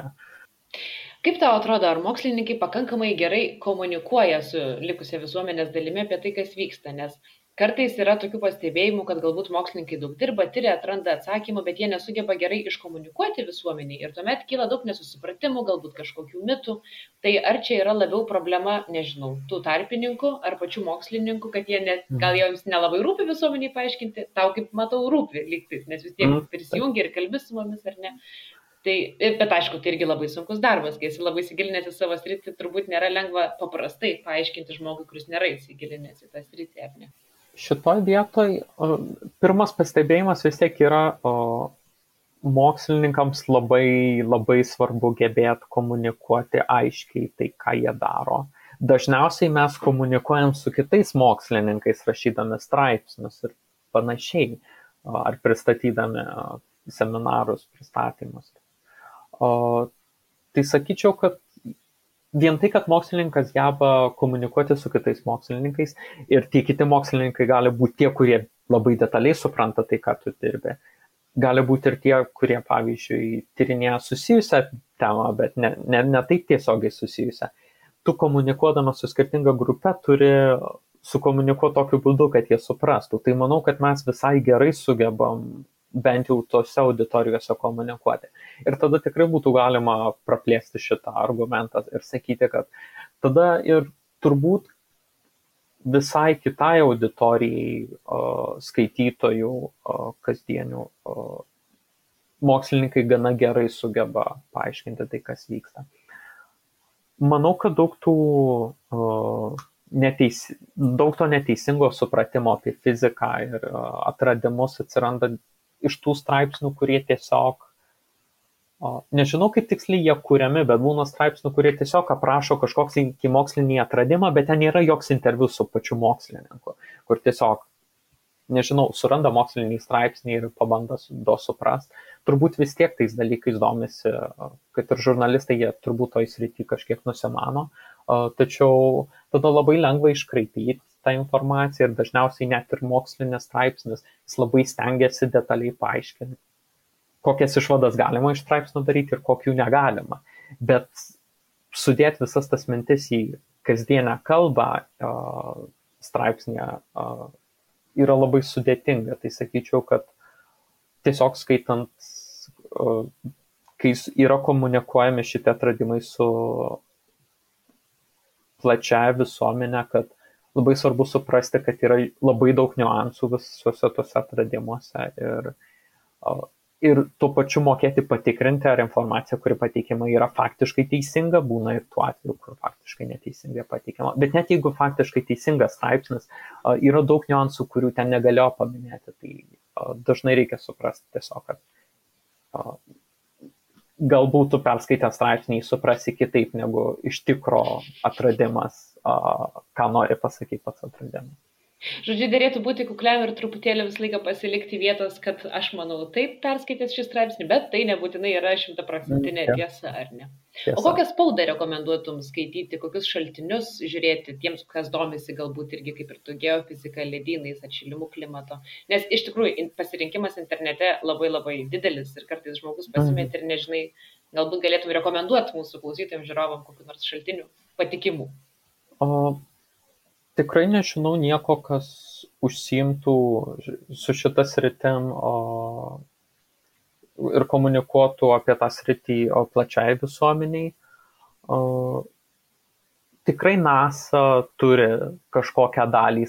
Kaip tau atrodo, ar mokslininkai pakankamai gerai komunikuoja su likusia visuomenės dalimi apie tai, kas vyksta? Nes kartais yra tokių pastebėjimų, kad galbūt mokslininkai daug dirba, tyria, atranda atsakymų, bet jie nesugeba gerai iškomunikuoti visuomeniai ir tuomet kyla daug nesusipratimų, galbūt kažkokių mitų. Tai ar čia yra labiau problema, nežinau, tų tarpininkų ar pačių mokslininkų, kad gal jiems nelabai rūpi visuomeniai paaiškinti, tau kaip matau rūpi lygtais, nes vis tiek prisijungi ir kalbi su mumis ar ne. Tai, bet aišku, tai irgi labai sunkus darbas, kai esi labai įsigilinęs į savo sritį, turbūt nėra lengva paprastai paaiškinti žmogui, kuris nėra įsigilinęs į tą sritį, ar ne? Šitoj vietoj pirmas pastebėjimas vis tiek yra mokslininkams labai, labai svarbu gebėti komunikuoti aiškiai tai, ką jie daro. Dažniausiai mes komunikuojam su kitais mokslininkais, rašydami straipsnius ir panašiai, ar pristatydami seminarus, pristatymus. Tai sakyčiau, kad vien tai, kad mokslininkas geba komunikuoti su kitais mokslininkais ir tie kiti mokslininkai gali būti tie, kurie labai detaliai supranta tai, ką tu dirbi. Gali būti ir tie, kurie, pavyzdžiui, tyrinėja susijusią temą, bet ne taip tiesiogiai susijusią. Tu komunikuodamas su skirtinga grupe turi sukomunikuoti tokiu būdu, kad jie suprastų. Tai manau, kad mes visai gerai sugebam bent jau tose auditorijose komunikuoti. Ir tada tikrai būtų galima praplėsti šitą argumentą ir sakyti, kad tada ir turbūt visai kitai auditorijai skaitytojų kasdienių mokslininkai gana gerai sugeba paaiškinti tai, kas vyksta. Manau, kad daug to neteisingo supratimo apie fiziką ir atradimus atsiranda iš tų straipsnių, kurie tiesiog Nežinau, kaip tiksliai jie kuriami, bet būna straipsnių, kurie tiesiog aprašo kažkoks mokslinį atradimą, bet ten nėra joks interviu su pačiu mokslininku, kur tiesiog, nežinau, suranda mokslinį straipsnį ir pabando suprast. Turbūt vis tiek tais dalykais domisi, kad ir žurnalistai, jie turbūt toj srity kažkiek nusimano, tačiau tada labai lengva iškraipyti tą informaciją ir dažniausiai net ir mokslinis straipsnis, jis labai stengiasi detaliai paaiškinti, kokias išvadas galima iš straipsnių daryti ir kokių negalima. Bet sudėti visas tas mintis į kasdienę kalbą straipsnėje yra labai sudėtinga. Tai sakyčiau, kad tiesiog skaitant, kai yra komunikuojami šitie atradimai su plačiaja visuomenė, kad labai svarbu suprasti, kad yra labai daug niuansų visuose tuose atradimuose ir tuo pačiu mokėti patikrinti, ar informacija, kuri pateikiama, yra faktiškai teisinga, būna ir tuo atveju, kur faktiškai neteisingai pateikiama. Bet net jeigu faktiškai teisingas straipsnis, yra daug niuansų, kurių ten negalėjo paminėti, tai dažnai reikia suprasti tiesiog, kad galbūt tu perskaitę straipsnį suprasi kitaip negu iš tikro atradimas, ką nori pasakyti pats atradimas. Žodžiu, dėrėtų būti kukliam ir truputėlį visą laiką pasilikti vietos, kad aš manau taip perskaitęs šį straipsnį, bet tai nebūtinai yra 100% tiesa, ar ne? Tiesa. O kokią spaudą rekomenduotum skaityti, kokius šaltinius žiūrėti tiems, kas domisi galbūt irgi kaip ir tu geofizika, ledynais, atšilimu klimato? Nes iš tikrųjų pasirinkimas internete labai labai didelis ir kartais žmogus pasimėti ir nežinai, galbūt galėtum rekomenduoti mūsų klausytojams, žiūrovam kokių nors šaltinių patikimų. Tikrai nežinau nieko, kas užsiimtų su šita sritim ir komunikuotų apie tą sritį plačiai visuomeniai. Tikrai NASA turi kažkokią dalį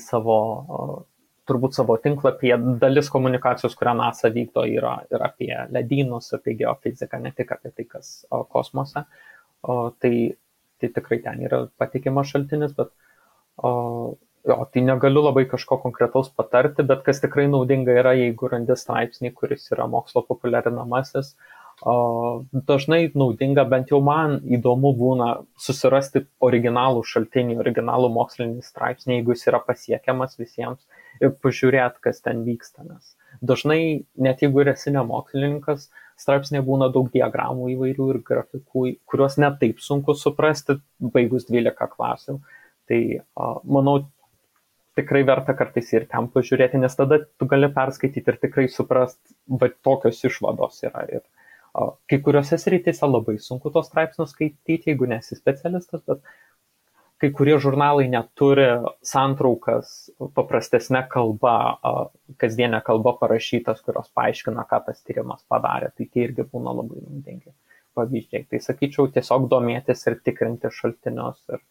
turbūt savo tinklapyje. Dalis komunikacijos, kurią NASA vykdo, yra ir apie ledynus, apie geofiziką, ne tik apie tai, kas kosmose. Tai tikrai ten yra patikimas šaltinis, bet tai negaliu labai kažko konkretaus patarti, bet kas tikrai naudinga yra, jeigu randi straipsnį, kuris yra mokslo populiarinamasis. Dažnai naudinga, bent jau man įdomu būna susirasti originalų šaltinį, originalų mokslinį straipsnį, jeigu jis yra pasiekiamas visiems ir pažiūrėti, kas ten vyksta. Nes dažnai, net jeigu esi ne mokslininkas, straipsnėje būna daug diagramų įvairių ir grafikų, kuriuos net taip sunku suprasti, baigus 12 klasių. Tai manau, tikrai verta kartais ir ten pažiūrėti, nes tada tu gali perskaityti ir tikrai suprast, bet tokios išvados yra. Ir kai kuriuose srityse labai sunku tos straipsnius skaityti, jeigu nesi specialistas, bet kai kurie žurnalai neturi santraukas paprastesnė kalba, kasdienė kalba parašytas, kurios paaiškina, ką tas tyrimas padarė. Tai tie irgi būna labai naudingi pavyzdžiai. Tai sakyčiau, tiesiog domėtis ir tikrinti šaltinius ir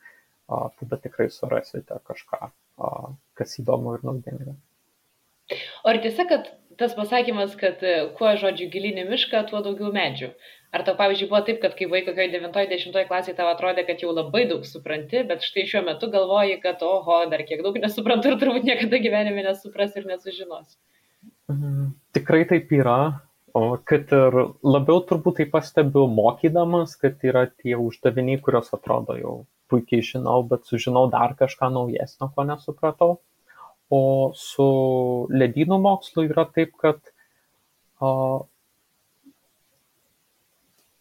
tada tikrai surasite kažką, kas įdomu ir naudinga. O ar tiesa, kad tas pasakymas, kad kuo žodžiu gilinį mišką, tuo daugiau medžių? Ar tau, pavyzdžiui, buvo taip, kad kai buvai kokioje 9-10 klasėje tau atrodė, kad jau labai daug supranti, bet štai šiuo metu galvoji, kad oho, dar kiek daug nesuprantu ir turbūt niekada gyvenime nesupras ir nesužinos? Tikrai taip yra, kad ir labiau turbūt tai pastebiu mokydamas, kad yra tie uždaviniai, kurios atrodo jau puikiai žinau, bet sužinau dar kažką naujesnio, ko nesupratau. O su ledynų mokslu yra taip, kad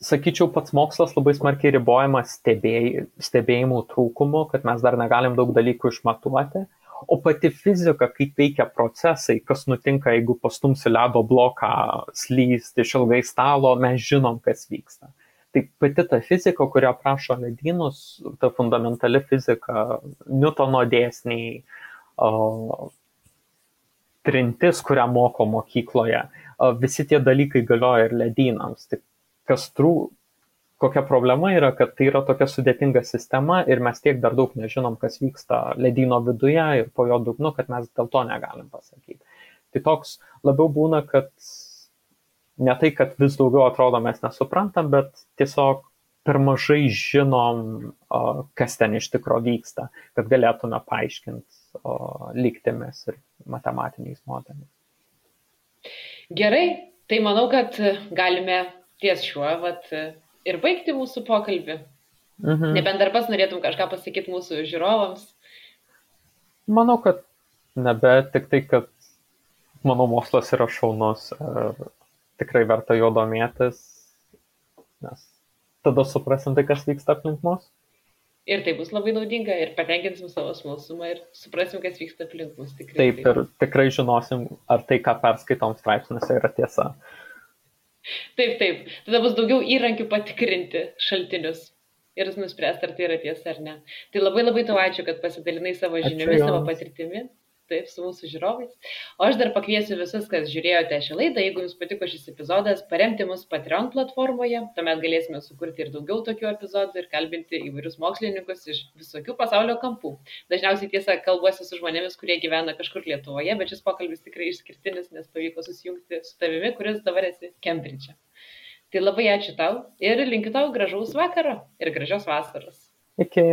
sakyčiau, pats mokslas labai smarkiai ribojamas stebėjimų trūkumu, kad mes dar negalim daug dalykų išmatuoti. O pati fizika, kaip veikia procesai, kas nutinka, jeigu pastumsi ledo bloką slysti iš ilgai stalo, mes žinom, kas vyksta. Tai pati ta fizika, kurią aprašo ledynus, ta fundamentali fizika, Niutono dėsniai, trintis, kurią moko mokykloje, visi tie dalykai galioja ir ledynams. Tai kokia problema yra, kad tai yra tokia sudėtinga sistema ir mes tiek dar daug nežinom, kas vyksta ledyno viduje ir po jo dugnu, kad mes dėl to negalim pasakyti. Tai toks labiau būna, kad ne tai, kad vis daugiau atrodo mes nesuprantam, bet tiesiog per mažai žinom, kas ten iš tikro vyksta, kad galėtume paaiškinti lygtimis ir matematiniais modeliais. Gerai, tai manau, kad galime ties šiuo ir baigti mūsų pokalbį. Nebent dar pats norėtum kažką pasakyti mūsų žiūrovams. Manau, kad nebe, tik tai, kad mano mokslas yra šaunus ir tikrai verta jo domėtis, nes tada suprasim tai, kas vyksta aplink mus. Ir tai bus labai naudinga ir patenkinsim savo smalsumą ir suprasim, kas vyksta aplink mus. Taip, ir tikrai žinosim, ar tai, ką perskaitom straipsniuose, yra tiesa. Taip. Tada bus daugiau įrankių patikrinti šaltinius ir nuspręsti, ar tai yra tiesa ar ne. Tai labai tau ačiū, kad pasidalinai savo žiniomis, savo patirtimi. Taip, su mūsų žiūrovais. O aš dar pakviesiu visus, kas žiūrėjote šią laidą, jeigu jums patiko šis epizodas, paremti mus Patreon platformoje, tuomet galėsime sukurti ir daugiau tokių epizodų ir kalbinti įvairius mokslininkus iš visokių pasaulio kampų. Dažniausiai tiesa kalbuosi su žmonėmis, kurie gyvena kažkur Lietuvoje, bet šis pokalbis tikrai išskirtinis, nes pavyko susijungti su tavimi, kuris dabar esi Kembridže. Tai labai ačiū tau ir linkiu tau gražaus vakaro ir gražios vasaros. Iki.